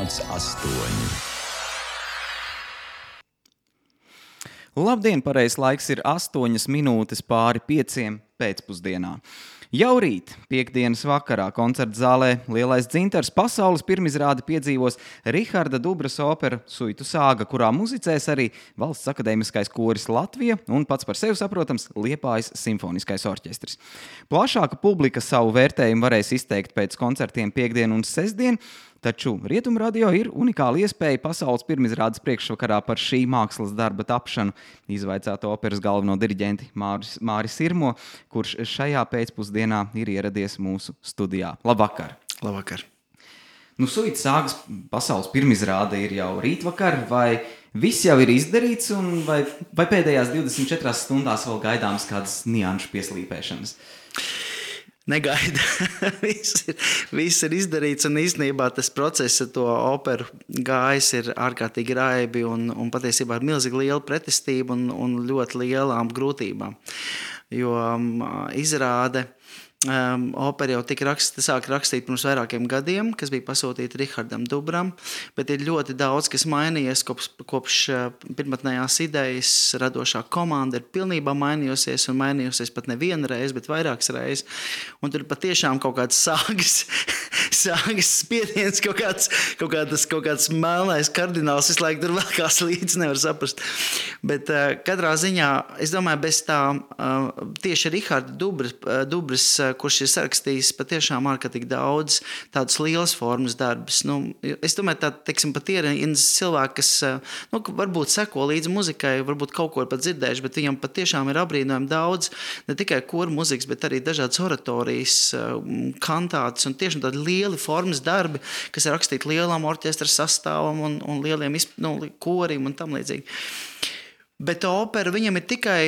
5,8. Labdien, pareizs laiks ir 8 minūtes pāri 5 pēcpusdienā. Jau rīt, piektdienas vakarā, koncerta zālē Lielais dzintars pasaules pirmizrādi piedzīvos Riharda Dubras opera Suitu sāga, kurā muzicēs arī Valsts akadēmiskais koris Latvija un pats par sevi saprotams Liepājas simfoniskais orķestris. Plašāka publika savu vērtējumu varēs izteikt pēc koncertiem piektdien un sestdien, taču Rietumradio ir unikāla iespēja pasaules pirmizrādes priekšvakarā par šī mākslas darba tapšanu izvaicāt operas galveno diriģenti Māri Sirmo, kurš šajā pēcpusdienā ir ieradies mūsu studijā. Labvakar! Labvakar! Suitu sāgas pasaules pirmizrāde ir jau rītvakar, vai viss jau ir izdarīts, un vai pēdējās 24 stundās vēl gaidāms kādas nianšu pieslīpēšanas? Negaida. Viss ir izdarīts, un īstenībā tas process ar to operu gājis ir ārkārtīgi raibi un patiesībā ar milzīgi lielu pretestību un ļoti lielām grūtībām. Jo izrāde opera jau tika sāk rakstīt pirms vairākiem gadiem, kas bija pasūtīta Rihardam Dubram, bet ir ļoti daudz, kas mainījies kopš pirmotnējās idejas. Radošā komanda ir pilnībā mainījusies un mainījusies pat nevienu reizi, bet vairākas reizes. Un tur patiešām kaut kāds sāgas spiediens, kaut kāds melnais kardināls visu laiku tur vēlkās līdzi, nevar saprast. Bet katrā ziņā, es domāju, bez tā tieši Riharda Dubras, kurš ir sarakstījis patiešām ārkārtīgi daudz tādas lielas formas darbus. Es domāju, pat ir cilvēki, kas varbūt seko līdzi muzikai, varbūt kaut ko ir pat dzirdējuši, bet viņam patiešām ir apbrīnojami daudz, ne tikai koru muzikas, bet arī dažādas oratorijas, kantātas un tiešām tādi lieli formas darbi, kas ir rakstīti lielam orķestra sastāvam un lieliem korim un tam līdzīgi. Bet opera viņam ir tikai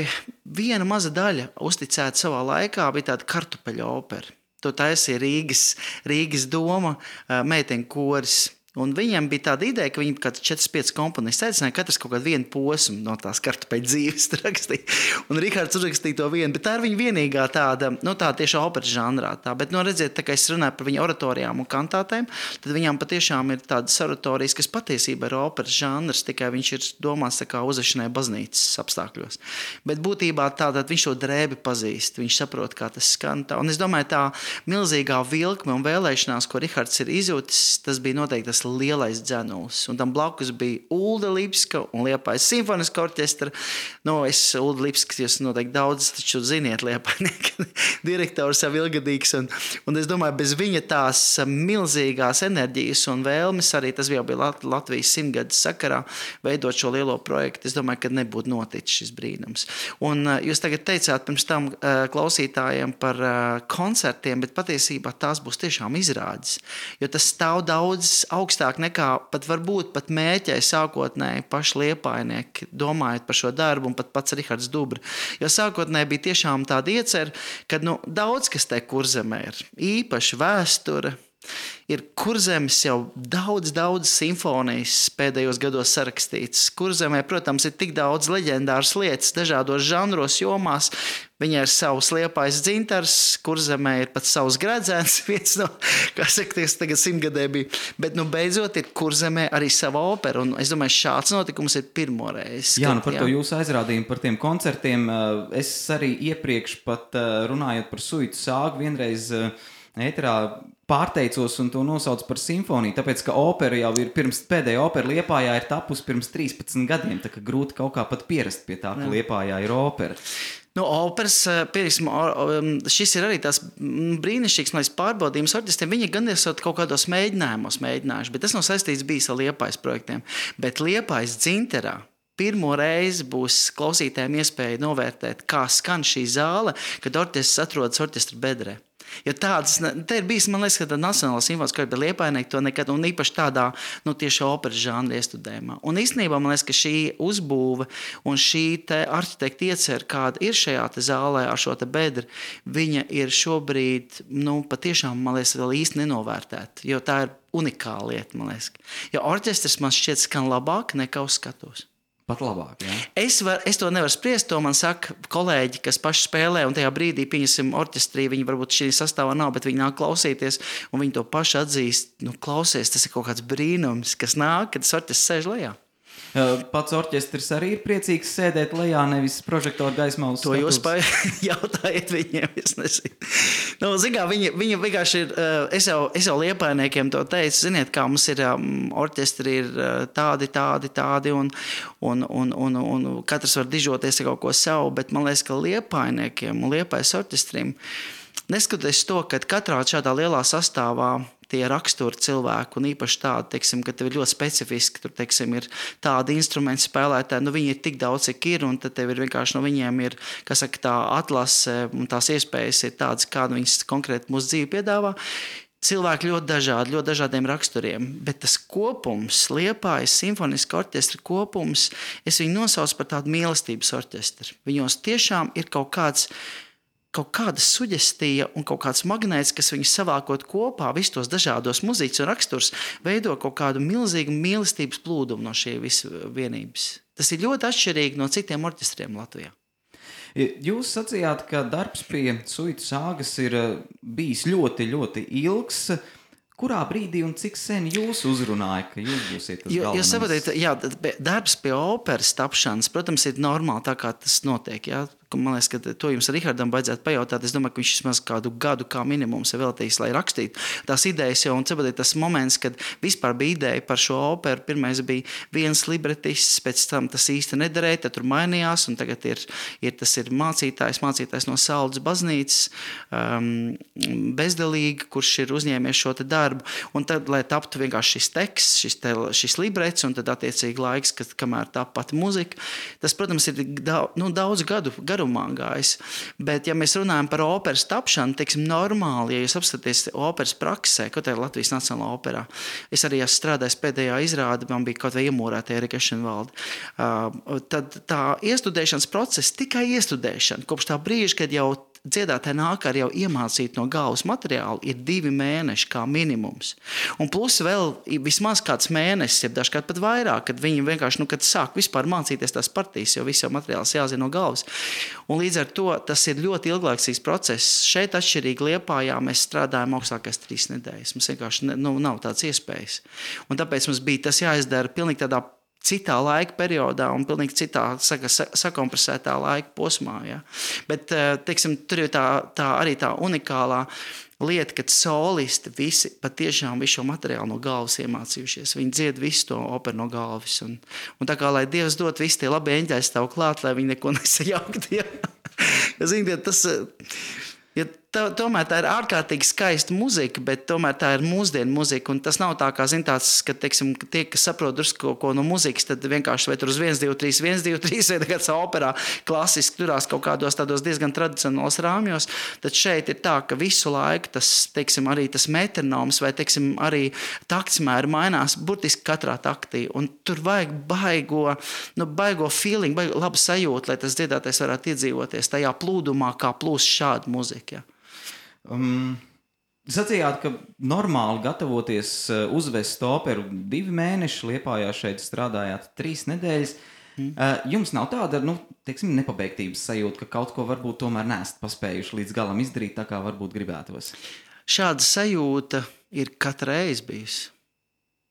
viena maza daļa uzticēta savā laikā, bija tāda kartupeļu opera. To taisīja Rīgas doma, meiteņu koris. Un viņiem bija tāda ideja, ka viņi kāds 4-5 komponisti aicināja katrs kaut kādu vienu posmu no tās kartupeļu dzīves rakstīt. Un Rihards uzrakstīja to vienu, bet tā ir viņa vienīgā tāda tieši operas žanrā. Bet, redziet, tā kā es runāju par viņa oratorijām un kantātēm, tad viņām patiešām ir tādas oratorijas, kas patiesībā ir operas žanrs, tikai viņš ir domāts tā kā uzvešanai baznīcas apstākļos. Bet būtībā tātad viņš to drēbi pazīst, viņš saprot, kā tas skan. Un es domāju, tā milzīgā vilkme un vēlēšanās, ko Rihards ir izjūtis, tas bija noteikti tas lielais dzenulis. Un tam blakus bija Ulda Lipska un Liepājas simfoniskā orķestra. Ulda Lipska, jūs noteikti daudz taču ziniet, Liepājnieka direktors jau ilgadīgs. Un es domāju, bez viņa tās milzīgās enerģijas un vēlmes, arī tas jau bija Latvijas 100-gades sakarā, veidot šo lielo projektu, es domāju, ka nebūtu noticis šis brīnums. Un jūs tagad teicāt pirms tam klausītājiem par koncertiem, bet patiesībā tās būs tiešām izrādes. Jo tas stāv daudz augstāk nekā varbūt pat mēķēja sākotnēji paši liepājnieki, domājot par šo darbu un pat pats Rihards Dubra. Jo sākotnēji bija tiešām tāda iecer, ka daudz kas te Kurzemē ir. Īpaši vēsture. Ir Kurzemes jau daudz simfonijas pēdējos gados sarakstīts. Kurzemē, protams, ir tik daudz leģendāras lietas dažādos žanros, jomās. Viņai ir savs Liepājas dzintars, Kurzemē ir pat savs Gredzēns, viens no, kā saka, tagad 100-gadē bija. Bet, beidzot, ir Kurzemē arī sava opera, un es domāju, šāds notikums ir pirmoreiz. Jā, par to jūsu aizrādījumu, par tiem koncertiem, es arī iepriekš pat runājot par Suitu sāgu, vienreiz ēterā pārteicos un to nosaucu par simfoniju, tāpēc, ka opera jau ir pēdējā opera Liepājā ir tapusi pirms 13 gadiem, tā ka grūti kaut kā pat pierast pie tā, ka Liepājā ir opera. Operas, šis ir arī tās brīnišķīgs pārbaudījums orķestriem. Viņi gan esat kaut kādos mēģinājumos mēģinājuši, bet tas nav saistīts bijis ar Liepājas projektiem. Bet Liepājas dzintarā pirmo reizi būs klausītājiem iespēja novērtēt, kā skan šī zāle, kad orķestris atrodas orķestra bedrē. Jo te ir bijis, man liekas, ka tā Nacionālā simfoniskā orķestra, bet Liepājnieki to nekad, un īpaši tādā, tieši operas žanra iestudējumā. Un īstenībā, man liekas, ka šī uzbūve un šī te arhitekta iecer, kāda ir šajā te zālē ar šo te bedri, viņa ir šobrīd, patiešām, man liekas, vēl īsti nenovērtēta, jo tā ir unikāla lieta, man liekas. Jo orķestris man šķiet skan labāk nekā uz skatos. pat labāk. Ja? Es to nevaru spriest, to man saka kolēģi, kas paši spēlē, un tajā brīdī, pieņemsim, orķestrī, viņi varbūt šī sastāvā nav, bet viņi nāk klausīties, un viņi to paši atzīst, klausies, tas ir kaut kāds brīnums, kas nāk, kad tas orķestris sēž lejā. Pats orķestris arī ir priecīgs sēdēt lejā, nevis prožektoru gaismā uz to skatuves. To jūs jautājiet viņiem, es nezinu. Zikā, viņi vienkārši ir, es jau liepainiekiem to teicu, ziniet, kā mums ir orķestri ir tādi, un katrs var dižoties ar kaut ko savu, bet man liekas, ka liepainiekiem un liepais orķestrim, neskatoties to, ka katrā šādā lielā sastāvā tie raksturi cilvēku, un īpaši tādi, teiksim, ka tev ir ļoti specifiski, tur, teiksim, ir tādi instrumenti spēlētāji, viņi ir tik daudz, cik ir, un tad tev ir vienkārši no viņiem ir, kas saka, tā atlase, un tās iespējas ir tādas, kādu viņas konkrēti mūsu dzīvi piedāvā. Cilvēki ļoti dažādiem raksturiem, bet tas kopums, Liepājas simfoniska orķestra kopums, es viņu nosaucu par tādu mīlestības orķestru. Viņos tiešām ir kaut kāda suģestija un kaut kāds magnēts, kas viņus savākot kopā, visus tos dažādos muzikas un raksturs, veido kaut kādu milzīgu mīlestības plūdumu no šī vienības. Tas ir ļoti atšķirīgi no citiem orķestriem Latvijā. Jūs sacījāt, ka darbs pie Suitu sāgas ir bijis ļoti, ļoti ilgs. Kurā brīdī un cik sen jūs uzrunāja, ka jūs būsiet tas galvenais? Jūs saprotat, jā, darbs pie operas tapšanas, protams, ir normāli tā, kā tas notiek, jā. Man liekas, ka to jums ar Rihardam vajadzētu pajautāt. Es domāju, ka viņš vismaz kādu gadu kā minimums ir veltījis, lai rakstītu tās idejas jau. Un tas moments, kad vispār bija ideja par šo operu, pirmais bija viens libretists, pēc tam tas īsti nederēja, tad tur mainījās, un tagad tas ir mācītājs no Saldas baznīcas, bezdelīgi, kurš ir uzņēmies šo te darbu. Un tad, lai taptu vienkārši šis teksts, šis librets, un tad attiecīgi laiks, kamēr tap pati muzika, tas, protams, ir daudz gadu garumā gājis. Bet, ja mēs runājam par operas tapšanu, teiksim, normāli, ja jūs apskaties operas praksē, kaut kā Latvijas Nacionālā operā, es arī esmu strādājis pēdējā izrāde, man bija kaut vai iemūrētie Erika Ešenvalde. Tad tā iestudēšanas process, tikai iestudēšana, kopš tā brīža, kad jau dziedātāji nāk ar jau iemācīt no galvas materiālu, ir 2 mēneši kā minimums. Un plus vēl vismaz kāds mēnesis, ja dažkārt pat vairāk, kad viņi vienkārši, kad sāk vispār mācīties tās partijas, jo viss jau materiāls jāzina no galvas. Un līdz ar to tas ir ļoti ilglaicīgs process. Šeit atšķirīgi Liepājā mēs strādājam augstākais 3 nedēļas. Mums vienkārši nav tāds iespējas. Un tāpēc mums bija tas jāizdara pilnīgi tādā citā laika periodā un pilnīgi citā sakompresētā laika posmā. Ja? Bet, teiksim, tur ir tā arī tā unikālā lieta, kad solisti visi patiešām visu šo materiālu no galvas iemācījušies. Viņi dzied visu to operu no galvas. Un tā kā, lai Dievs dot visi tie labi eņģeļi stāv klāt, lai viņi neko nesajaukt. Ja? Ziniet, tas... Ja tomēr tā ir ārkārtīgi skaista muzika, bet tomēr tā ir mūsdienu muzika. Un tas nav tā kā, tāds, ka, teiksim, tie, kas saprot drusku ko no muzikas, tad vienkārši vai tur uz 1, 2, 3, vai kāds operā klasiski turās kaut kādos tādos diezgan tradicionālos rāmjos. Tad šeit ir tā, ka visu laiku tas, teiksim, arī tas metronoms vai, teiksim, arī taktsmēri mainās burtiski katrā taktī. Un tur vajag baigo feeling, baigo labu sajūtu, lai tas dziedātais varētu iedzīvoties tajā plūdumā, kā plūst šāda muzika. Ja. Sacījāt, ka normāli gatavoties uzvest operu 2 mēneši, Liepājā šeit strādājāt 3 nedēļas. Jums nav tāda, teiksim, nepabeigtības sajūta, ka kaut ko varbūt tomēr neesat paspējuši līdz galam izdarīt, tā kā varbūt gribētos? Šāda sajūta ir katru reizi bijusi.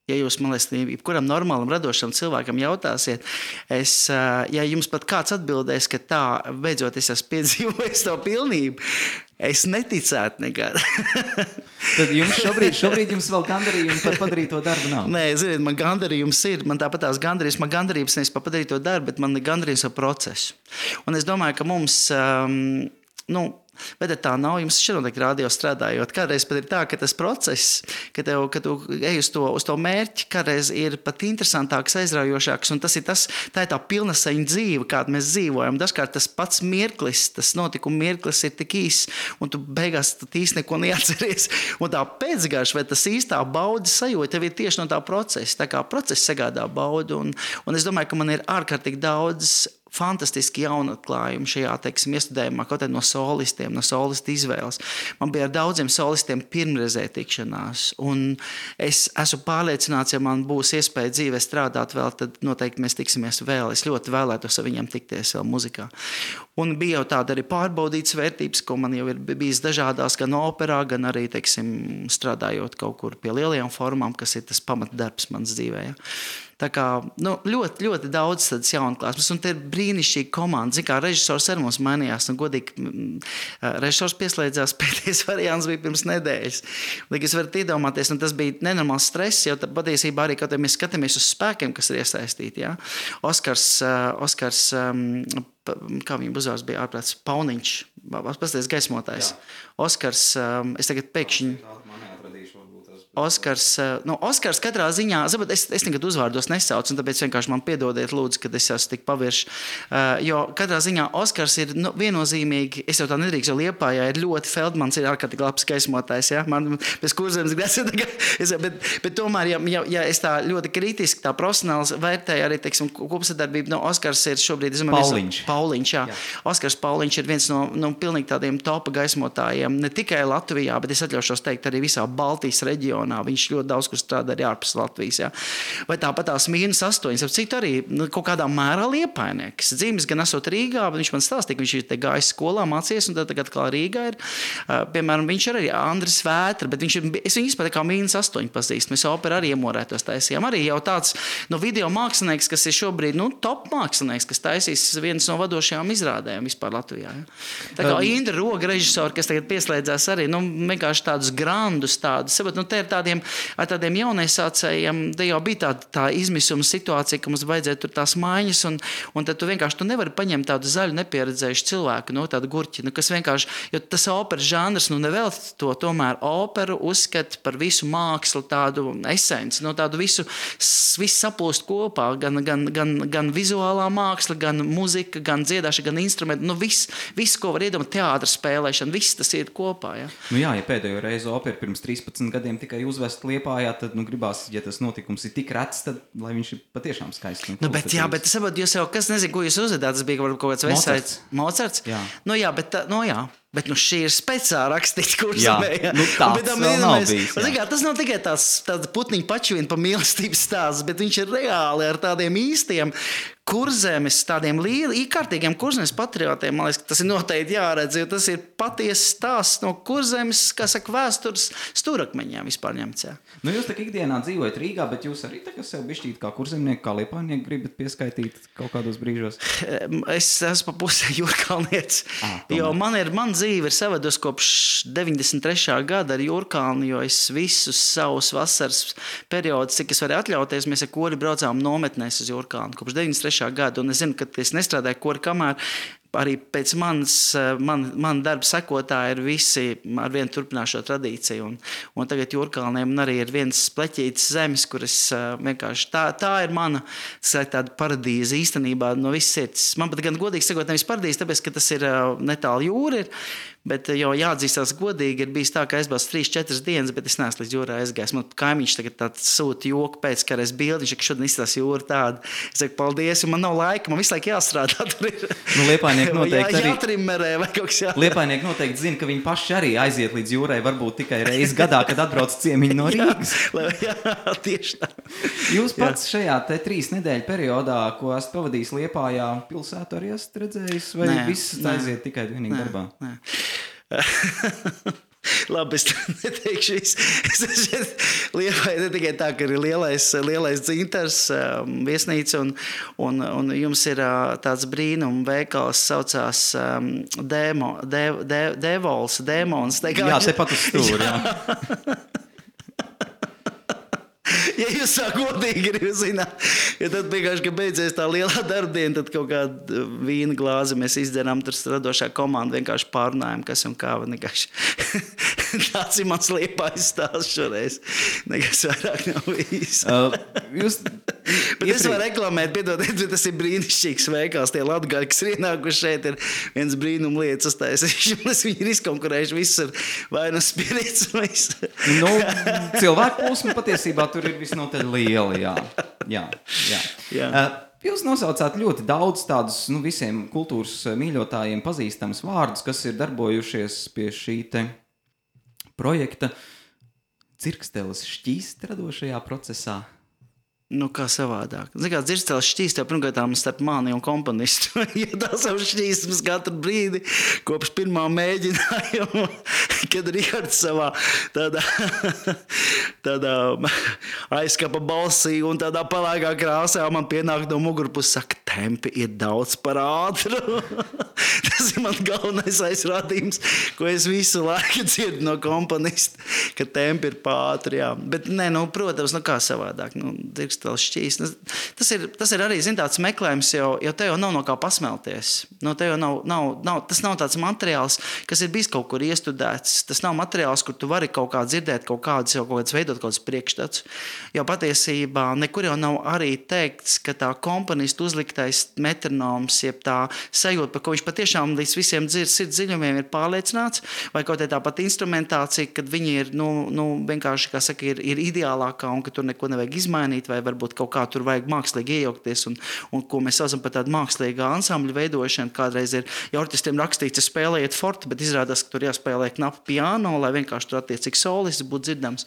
Ja jūs, man liekas, jebkuram normālam, radošam cilvēkam jautāsiet, ja jums pat kāds atbildēs, ka tā, beidzot, es esmu piedzīvojis to pilnību, es neticētu nekad. Tad jums šobrīd jums vēl gandarījumi par padarīto darbu nav? Nē, ziniet, man gandarījums ir, man tāpat tās gandarījums nevis par padarīto darbu, bet man ir gandarījums par procesu. Un es domāju, ka mums, bet tā nav, jums šeit noteikti radio strādājot. Kādreiz pat ir tā, ka tas process, ka tu ej uz to mērķi, kādreiz ir pat interesantāks, aizraujošāks, un tā ir tā pilnasaņa dzīve, kādu mēs dzīvojam. Dažkārt tas pats mirklis, tas notikuma mirklis ir tik īs, un tu beigās īsti neko neatceries. Un tā pēcgarša, vai tas īstā baudas sajūta, tev ir tieši no tā procesa. Tā kā process sagādā baudu, un es domāju, ka man ir ārkārtīgi daudz fantastiski jaunu atklājumu šajā, teiksim, iestudējumā, kaut arī no solistiem, no solistu izvēles. Man bija ar daudziem solistiem pirmreizē tikšanās, un es esmu pārliecināts, ja man būs iespēja dzīvē strādāt vēl, tad noteikti mēs tiksimies vēl. Es ļoti vēlētos ar viņiem tikties vēl muzikā. Un bija jau tāda arī pārbaudītas vērtības, ko man jau ir bijis dažādās, gan operā, gan arī, teiksim, strādājot kaut kur pie lielajām formām, kas ir tas pamatdarbs mans dzīvē. Ja. Tā kā ļoti, ļoti daudz tādas jaunklāsmes, un te ir brīnišķīga komanda. Zin kā, režisors arī mums mainījās, un godīgi režisors pieslēdzās, pēdējais variants bija pirms nedēļas. Lai es varat iedomāties, un tas bija nenormāls stress, jo patiesībā arī, kad mēs skatāmies uz spēkiem, kas ir iesaistīti, ja? Oskars, kā viņa uzvārds bija ārprāts, Pauniņš, pastāties gaismotājs. Oskars, es tagad pēkšņi... Oskars katrā ziņā, es nekad uzvārdos nesaucu, un tāpēc vienkārši man piedodiet lūdzu, kad es esmu tik pavirši, jo katrā ziņā Oskars ir viennozīmīgi, es jau tā nedrīkst, jo Liepājā ir ļoti Feldmans, ir ārkārtīgi labs gaismotājs, ja? Man pēc Kurzemes grāts, bet tomēr, ja es tā ļoti kritiski, tā profesionāls vērtēju arī, teiksim, kopsadarbību, Oskars ir šobrīd, Pauliņš, jā. Oskars Pauliņš ir viens no pilnīgi tādiem topa gaismotājiem, ne tikai Latvijā, bet es atļaušos teikt arī visā Baltijas reģionā. Viņš ļoti daudz kur strādā arī ārpus Latvijas. Ja? Vai tāpat tās -8, ap cik arī kaut kādā mērā liepainieks. Dzīves gan esot Rīgā, bet viņš man stāstīja, ka viņš ir te gājis skolā, mācījies, un tad tagad kā Rīgā ir. Piemēram, viņš ir arī Andris Vētra, bet es viņu izpēc kā -8 pazīst. Mēs operu arī iemorētos taisījām. Arī jau tāds video mākslinieks, kas ir šobrīd top mākslinieks, kas taisīs vienas no vadošajām izrādēm vispār Latvijā. Ja? Tā kā Indra Roga režisori, kas tagad pieslēdzās arī, vienkārši tādus grandus, tādus, te ir ar tādiem jauniesācējiem, te jau bija tā izmisuma situācija, ka mums vajadzēja tur tās maiņas, un tad tu vienkārši nevari paņemt tādu zaļu nepieredzējušu cilvēku, tādu gurķi, kas vienkārši, jo tas operas žanrs, nevēl to tomēr operu uzskata par visu mākslu, tādu esenci, tādu visu saplūst kopā, gan vizuālā māksla, gan muzika, gan dziedāšana, gan instrumenti, viss, ko var iedomāt, teātra spēlēšana, viss tas ir kopā, ja. Ja pēdējo reizi opera pirms 13 gadiem tikai uzvest Liepājā, tad gribās, ja tas notikums ir tik rets, tad lai viņš ir patiešām skaists. Bet saprot, jūs jau, kas nezinu, ko jūs uzvedāt, tas bija kaut kāds Mozarts. Mozarts? Jā. Bet šī ir speciāli rakstīta Kurzemē. Tāds vēl nav bijis. Tas nav tikai tāds putniņu pačvien pa mīlestības stāsts, bet viņš ir reāli ar tādiem īstiem Kurzemes, tādiem kārtīgiem Kurzemes patriotiem. Man liekas, ka tas ir noteikti jāredz, jo tas ir patiesi stāsts no Kurzemes, kā saka, vēstures stūrakmeņiem vispār ņemts. Jūs tā ikdienā dzīvojat Rīgā, bet jūs arī tagad sev bišķīt kā kurzemnieki, kā liepājnieki gribat pieskaitīt kaut kādos brīžos? Es esmu pa pusē Jūrkalnietis, jo man dzīve ir savados kopš 93. gada ar Jūrkalni, jo es visus savus vasaras periodus, cik es varēju atļauties, mēs ar kori braucām nometnēs uz Jūrkalni kopš 93. gadu, un es zinu, ka es nestrādāju kori kamēr, arī pēc man darba sekotāji ir visi ar vienu turpināšo tradīciju, un tagad Jūrkalniem arī ir viens pleķītis zemes, kur es vienkārši, tā ir mana tāda paradīze īstenībā no visas sirds. Man pat gan godīgi sakot nevis paradīze, tāpēc, ka tas ir netālu jūra ir, bet jau jāatzīstās godīgi, ir bijis tā, ka aizbrauc 3-4 dienas, bet es neesmu līdz jūrā aizgājis. Man kaimiņš tagad tāds sūta joku pēc, ka reiz bildi, viņš, ka šodien izstās jūra tāda. Es saku, paldies, un man nav laika, man visu laiku jāstrādā. Tur ir. Liepājnieki noteikti arī. Jātrimmerē vai kaut kas jādara. Liepājnieki noteikti zina, ka viņi paši arī aiziet līdz jūrai, varbūt tikai reizi gadā, kad atbrauc ciemiņi no Rīgas. Jā, tieši tā. Jūs pats šajā 3 nedēļu periodā, ko esat pavadījis Liepājā, pilsētu arī esat redzējis, vai viss aiziet tikai vienīgi darbā? Nē. Labi, es neteikšu visu. Liepāja ne tikai tā, ka ir lielais dzintars, viesnīca, un jums ir tāds brīnum veikals, saucās Dēmons. Jā, tepat uz stūri, jā. Ja jūs tā godīgi gribat zināt, ja tad vienkārši, ka beidzies tā lielā darbdiena, tad kaut kādu vīna glāzi mēs izdzeram, tur radošā komanda vienkārši pārunājam, kas un kā. Tāds ir mans Liepājas stāsts šoreiz. Nekas vairāk nav bijis. Bet es varu reklamēt, piedodiet, bet tas ir brīnišķīgs veikals. Tie latgaļi, kas ir ienākuši šeit, ir viens brīnum lietas uztaisījuši. Viņi ir izkonkurējuši visu ar vainu spirits. Cilvēku plūsma patiesībā tur ir visnotaļ liela, jā. Jūs nosaucāt ļoti daudz tādus visiem kultūras mīļotājiem pazīstams vārdus, kas ir darbojušies pie šī te projekta Dzirksteles šķīst radošajā procesā. Nu, kā savādāk. Zini, kā Dzirksteles šķīst jau pirmkārtām starp mani un komponistu. Ja tās jau šķīstums katru brīdi, kopš pirmā mēģinājuma, kad Rihards savā tādā aizkapa balsī un tādā palēkā krāsā man pienāk no mugurpuses, saka, tempi ir daudz par ātru. Tas ir man galvenais aizrādījums, ko es visu laiku dzirdu no komponista, ka tempi ir pār ātri, jā. Bet, protams, kā savādāk. Dzirksteles šķīst. Tas ir arī, tāds meklējums, jo te jau nav no kā pasmelties. Te jau tas nav tāds materiāls, kas ir bijis kaut kur iestudēts. Tas nav materiāls, kur tu vari kaut kā dzirdēt kaut kādas veidot kaut kādas priekšstats. Jo patiesībā nekur jau nav arī teikts, ka tā komponista uzliktais metronoms, jeb tā sajūta, par ko viņš patiešām līdz visiem sirds dziļumiem ir pārliecināts, vai kaut tā pat instrumentācija, kad viņi ir, vienkārši, kā saka, ir ideālākā un ka tur neko nevajag izmainīt, vai varbūt kaut kā tur vajag mākslīgi iejaukties un ko mēs saucam par tādu mākslīgā ansambļu veidošanu. Kādreiz ir, ja orķestriem rakstīts, spēlējiet forti, bet izrādās, ka tur jāspēlē knapi piano, lai vienkārši tur attiecīgi solists būtu dzirdams.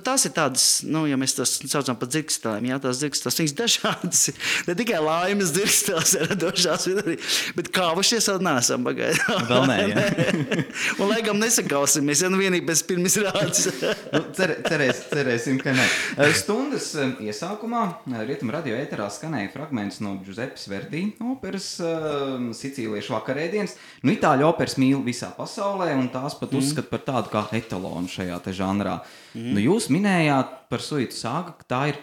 Tās ir tādas, ja mēs tas saucam par dzirkstelēm, jā, tās dzirksteles, viņas dažādas, ne tikai laimes dzirksteles ir radošās, bet kāvušies vēl neesam pagaidām. Vēl nē, jā. Un laikam nesakausimies, vienīgi pēc pirms rādes. Cerēsim, ka ne. Stundas iesākumā Rietumu radio ēterā skanēja fragments no Giuseppes Verdi operas Sicīliešu vakarēdienas. Itāļu operas mīl visā pasaulē un tās pat uzskata par tādu kā etalonu šajā te žanrā. Jūs minējāt par Suitu Sāga, ka tā ir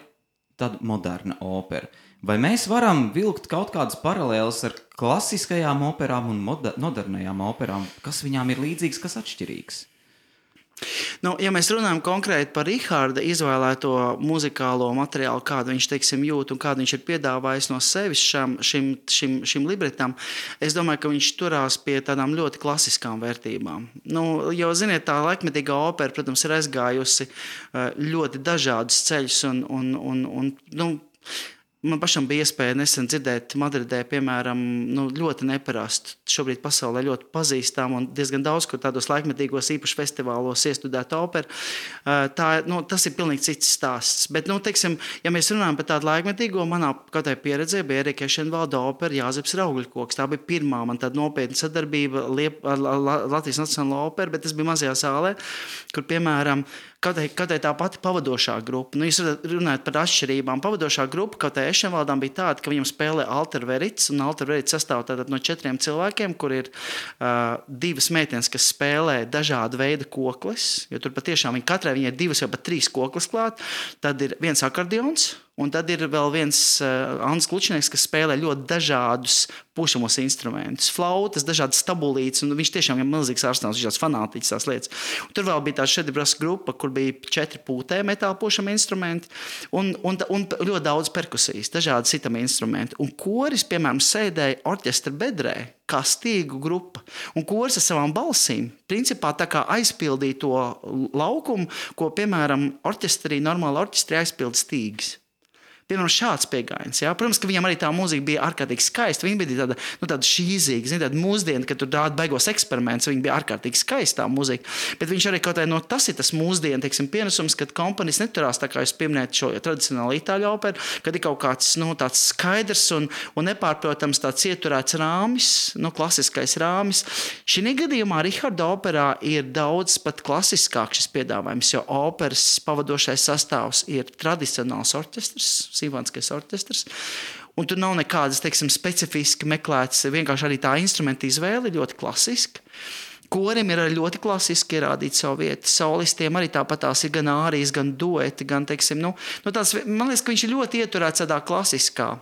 tāda moderna opera. Vai mēs varam vilkt kaut kādas paralēles ar klasiskajām operām un modernajām operām? Kas viņām ir līdzīgs, kas atšķirīgs? Ja mēs runājam konkrēti par Riharda izvēlēto muzikālo materiālu, kādu viņš, jūt un kādu viņš ir piedāvājis no sevis šim libretam, es domāju, ka viņš turās pie tādām ļoti klasiskām vērtībām. Jo, ziniet, tā laikmetīgā opera, protams, ir aizgājusi ļoti dažādus ceļus un man pašam bija iespēja nesen dzirdēt Madridē, piemēram, ļoti neparastu, šobrīd pasaulē ļoti pazīstam un diezgan daudz, kur tādos laikmetīgos īpaši festivālos iestudēt operu. Tas ir pilnīgi cits stāsts. Bet, ja mēs runājam par tādu laikmetīgo, manā katrai pieredzē bija Erika Ešenvalda opera Jāzeps Raugļkoks. Tā bija pirmā man tāda nopietna sadarbība ar Latvijas Nacionālo operu, bet tas bija mazajā zālē, kur, piemēram, Katrai tā pati pavadošā grupa. Jūs runājat par atšķirībām. Pavadošā grupa katrai Ešenvaldām bija tāda, ka viņam spēlē Alter Verits, un Alter Verits sastāv no 4 cilvēkiem, kur ir 2 meitenes, kas spēlē dažādu veidu koklis, jo tur patiešām katrai viņai 2 vai pat 3 koklis klāt. Tad ir viens akordeons, un tad ir vēl viens Andris Klučnieks, kas spēlē ļoti dažādus pušamos instrumentus, flautas, dažādas stabulītes, un viņš tiešām ir milzīgs ārstāns, viņš tāds fanātiķis tās lietas. Un tur vēl bija tā šedibras grupa, kur bija 4 pūtē metāla pušami instrumenti un ļoti daudz perkusijas, dažādi sitami instrumenti. Un koris, piemēram, sēdēja orķestra bedrē, kā stīgu grupa. Un koris ar savām balsīm, principā tā kā aizpildīja to laukumu, ko, piemēram, normāli orķestrī aizpild stīgas. Piemēram, šāds pieejams. Protams, ka viņam arī tā mūzika bija ārkārtīgi skaista. Viņa bija tāda šīzīga, tāda mūsdiena, kad tur rāda baigos eksperimentus. Viņa bija ārkārtīgi skaista mūzika. Bet viņš arī kaut kā tas ir tas mūsdienu pienesums, kad komponists neturās, tā kā jūs pieminējat šo tradicionālo itāļu operu, kad ir kaut kāds tāds skaidrs un nepārprotams tāds ieturēts rāmis, klasiskais rāmis. Šī gadījumā Riharda operā ir daudz pat klasiskāk šis piedāvājums, jo operas pavadošais sastāvs ir tradicionāls orķestrs, simfoniskais orķestrs. Un tur nav nekādas, specifiski meklētas, vienkārši arī tā instrumenta izvēle ļoti klasiska. Korim ir ļoti klasiski ierādīt savu vietu. Solistiem arī tāpat tās ir gan ārijas, gan dueti, gan, tāds, man liekas, ka viņš ir ļoti ieturēts tādā klasiskā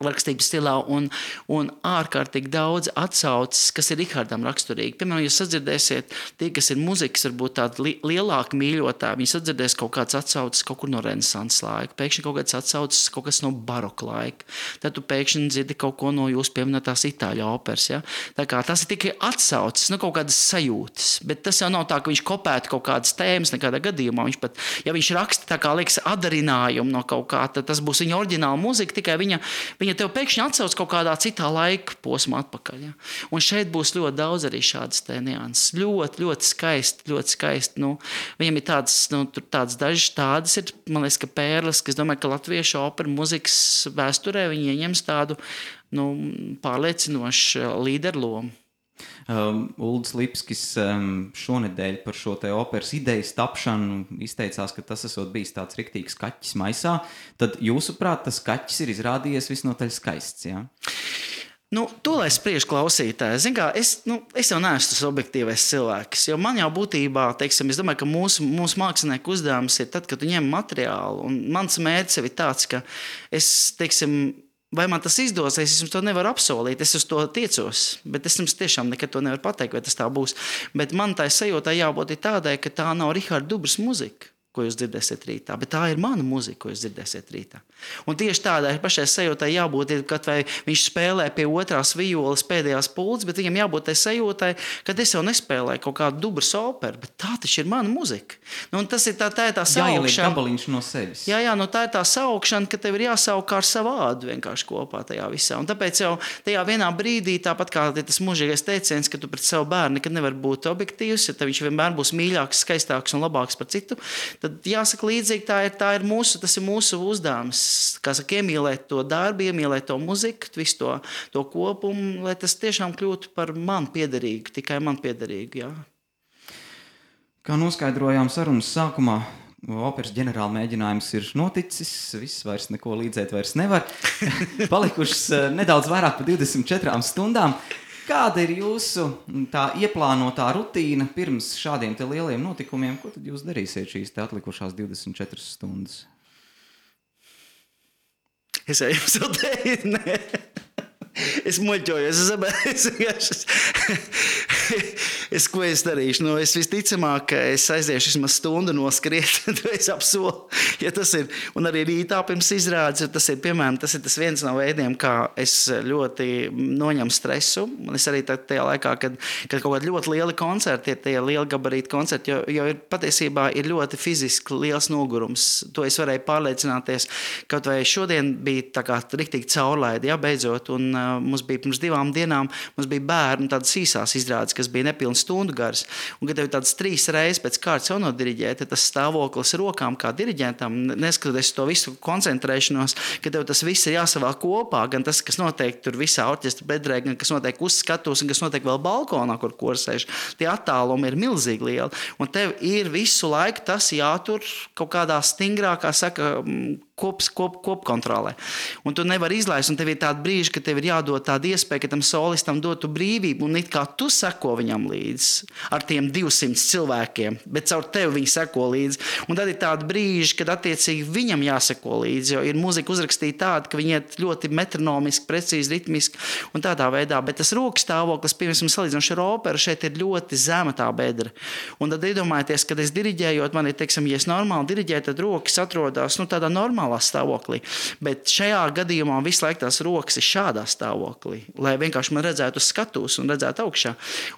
rakstības stilā un ārkārtīgi daudz atsauces, kas ir Rihardam raksturīgi. Piemēram, jūs sadzirdēsiet, tie, kas ir muzikas, varbūt tādi lielāki mīļotāji, viņi sadzirdēs kaut kāds atsauces kaut kur no Renesanses laika, pēkšņi kaut kāds atsauces kaut kas no baroka laika. Tad tu pēkšņi dzirdi kaut ko no jūs pieminētās itāļu operas. Ja? Tā kā tas ir tikai atsauces, kaut kādas sajūtas, bet tas jau nav tā, ka viņš kopētu kaut kādas tēmas nekādā gadījumā. Viņš pat, ja viņš raksta tā kā liekas adarinājumu no kaut kā, tad tas būs viņa oriģināla mūzika, tikai viņa ja tev pēkšņi atsauc kaut kādā citā laika posmā atpakaļ. Ja? Un šeit būs ļoti daudz arī šādas te nianses. Ļoti, ļoti skaisti, ļoti skaisti. Nu, viņam ir tāds dažas tādas ir, man liekas, ka pērles, ka es domāju, ka latviešu opera muzikas vēsturē viņi ieņems tādu pārliecinošu līderu lomu. Uldis Lipskis šonedēļ par šo te operas idejas tapšanu izteicās, ka tas esot bijis tāds riktīgs kaķis maisā. Tad jūsuprāt, tas kaķis ir izrādījies visnotaļ skaists, jā? To, lai spriež klausītāji. Zin kā, es jau neesmu tas objektīvais cilvēks, jo man jau būtībā, teiksim, es domāju, ka mūsu mākslinieku uzdevums ir tad, kad tu ņem materiālu, un mans mērķis ir tāds, ka es, teiksim, vai man tas izdosies, es jums to nevaru apsolīt, es uz to tiecos, bet es jums tiešām nekad to nevaru pateikt, vai tas tā būs. Bet man tā sajūtā jābūt tādai, ka tā nav Riharda Dubras muzika, ko jūs dzirdēsiet rītā, bet tā ir mana muzika, ko jūs dzirdēsiet rītā. Un tieši tādai pašai sajūtai jābūt, kad vai viņš spēlē pie otrās violas pēdējās pulces, bet viņam jābūt tai sajūtai, kad es jau nespēlēju kaut kādu Dubras operu, bet tā taču ir mana muzika. Un tas ir tā saukšana. Jāieliek gabaliņš no sevis. Jā, tā ir tā saukšana, ka tev ir jāsauk kā ar savu ādu vienkārši kopā tajā visā. Un tāpēc jau tajā vienā brīdī, tāpat kā tas mūžīgais teiciens, ka tu pret savu bērnu nekad nevar būt objektīvs, ja viņš vienmēr būs mīļāks, skaistāks un labāks par citu, tad jāsaka līdzīgi, tas ir mūsu uzdevums, kā saka, iemīlēt to darbu, iemīlēt to muziku, visu to kopumu, lai tas tiešām kļūtu par man piederīgu, tikai man piederīgu, jā. Kā noskaidrojām sarunas sākumā, operas ģenerāla mēģinājums ir noticis, viss vairs neko līdzēt vairs nevar. Palikušas nedaudz vairāk par 24 stundām. Kāda ir jūsu tā ieplānotā rutīna pirms šādiem te lieliem notikumiem? Ko tad jūs darīsiet šīs te atlikušās 24 stundas? Es jau jums jau teicu, nē. Es muļķojos, ko es darīšu? Es visticamāk, ka es aiziešu vismaz stundu noskriet, to es apsolu, ja tas ir. Un arī rītā pirms izrādes, tas ir, piemēram, tas ir tas viens no veidiem, kā es ļoti noņemu stresu. Un es arī tajā laikā, kad kaut kādi ļoti lieli koncerti, tie lieli gabarīti koncerti, jo ir patiesībā ir ļoti fiziski liels nogurums. To es varēju pārliecināties, kaut vai šodien bija tā kā riktīgi caurlaidi, jā, beidzot, un mums bija pirms 2 dienām, mums bija bērni tādas īsās izrādes, kas bija nepilnas stundu garas. Un, kad tev tādas 3 reizes pēc kārtas jau nodiriģē, tad tas stāvoklis rokām kā diriģentam, neskatoties to visu koncentrēšanos, ka tev tas viss ir jāsavēl kopā, gan tas, kas notiek tur visā orķestra bedrē, gan kas notiek uz skatuves, un kas notiek vēl balkonā, kur korsēž. Tie attālumi ir milzīgi lieli. Un tev ir visu laiku tas jātur kaut kādā stingrākā, saka, kopkontrolē. Un tu nevari izlaist, un tev ir tāda brīža, ka tev ir jādod tāda iespēja, ka tam solistam dotu brīvību, un it kā tu seko viņam līdzi ar tiem 200 cilvēkiem, bet caur tevi viņi seko līdzi. Un tad ir tāda brīža, kad attiecīgi viņam jāseko līdzi, jo ir mūzika uzrakstīta tāda, ka viņi iet ļoti metronomiski, precīzi, ritmiski un tādā veidā, bet tas rokas stāvoklis, piemēram, salīdzinoši ar operu, šeit ir ļoti zema tā bedra. Un tad iedomājieties, kad es diriģējot, man ir, teiksim, ja es normāli diriģēju, tad rokas atrodas, tādā normālā stāvoklī. Bet šajā gadījumā visu laiku tās rokas ir šādā stāvoklī, lai vienkārši man redzētu uz skatuves un redzētu augšā.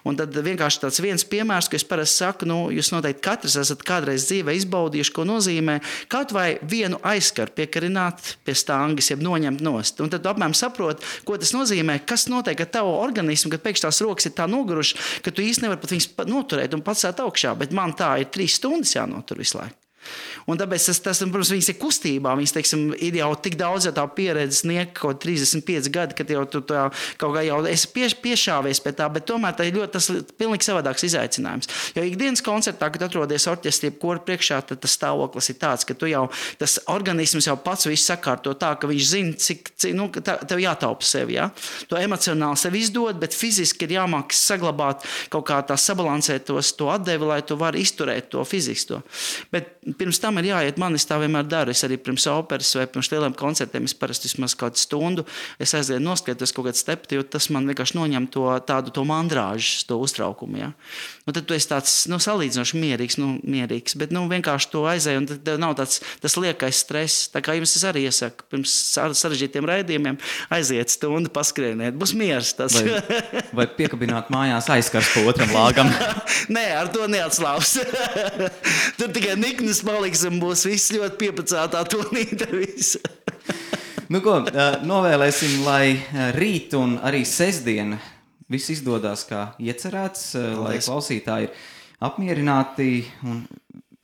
Un tad vienkārši tāds viens piemērs, ka es parasti saku, jūs noteikti katrs esat kādreiz dzīvē izbaudījuši, ko nozīmē kaut vai vienu aizskaru piekarināt pie stāngas, jeb noņemt nost. Un tad tu apmēram saproti, ko tas nozīmē, kas notiek ar tavu organismu, kad pēkšņi tās rokas ir tā nogurušas, ka tu īsti nevari pat viņas noturēt un pacelt augšā, bet man tā ir 3 stundas jānotur visu laiku. Un tāpēc tas, protams, viņas ir kustībā. Viņas, teiksim, ir jau tik daudz tā pieredze sniegt kaut 35 gadi, kad jau tu tā, kaut kā jau esi piešāvies pie tā, bet tomēr tā ir ļoti tas pilnīgi savādāks izaicinājums. Jo ikdienas koncertā, kad atrodies orķestrī kora priekšā, tad tas stāvoklis ir tāds, ka tu jau, tas organisms jau pats visu sakārto tā, ka viņš zina, cik tev jātaupa sevi, ja? To emocionāli sevi izdod, bet fiziski ir jāmāk saglabāt kaut kā tā sabalansēt to atdevi, lai tu vari izturēt to fiziski to. Bet pirms tam ir jāiet, man es tā vienmēr daru. Es arī pirms operas vai pirms lieliem koncertiem, es parasti vismaz kādu stundu, es aizlienu noskatos kaut kādu stepti, jo tas man vienkārši noņem to mandrāžu, to uztraukumu. Ja? Un tad tu esi tāds salīdzinoši mierīgs, bet vienkārši to aizēj, un tad nav tas liekais stress. Tā kā jums es arī iesaku, pirms sarežģītiem raidījumiem aiziet stundu, paskrieniet, būs miers tas. Vai piekabināt mājās aizskars pa otram lāgam? Nē, ar to neatslāps. Tur tikai niknis paliks un būs viss ļoti piepacētā tonīta visu. Nu ko, novēlēsim, lai rīt un arī sestdien viss izdodas kā iecerēts, lai klausītāji ir apmierināti un,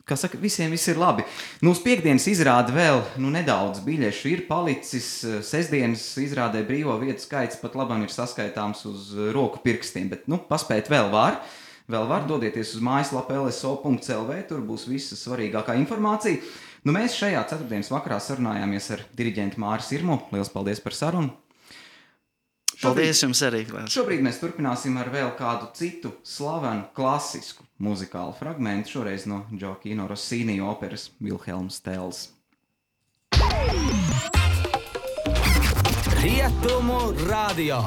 kā saka, visiem viss ir labi. Uz piekdienas izrāda vēl nedaudz biļešu ir palicis. Sestdienas izrādē brīvo vietu skaits pat labam ir saskaitāms uz roku pirkstiem, bet paspēt vēl var. Vēl var dodieties uz mājaslapu lso.lv, tur būs visa svarīgākā informācija. Mēs šajā ceturtdienas vakarā sarunājāmies ar diriģentu Māri Sirmu. Liels paldies par sarunu! Paldies jums arī! Šobrīd mēs turpināsim ar vēl kādu citu slavenu klasisku muzikālu fragmentu, šoreiz no Gioacchino Rossini operas Vilhelms Tells. Rietumu radio!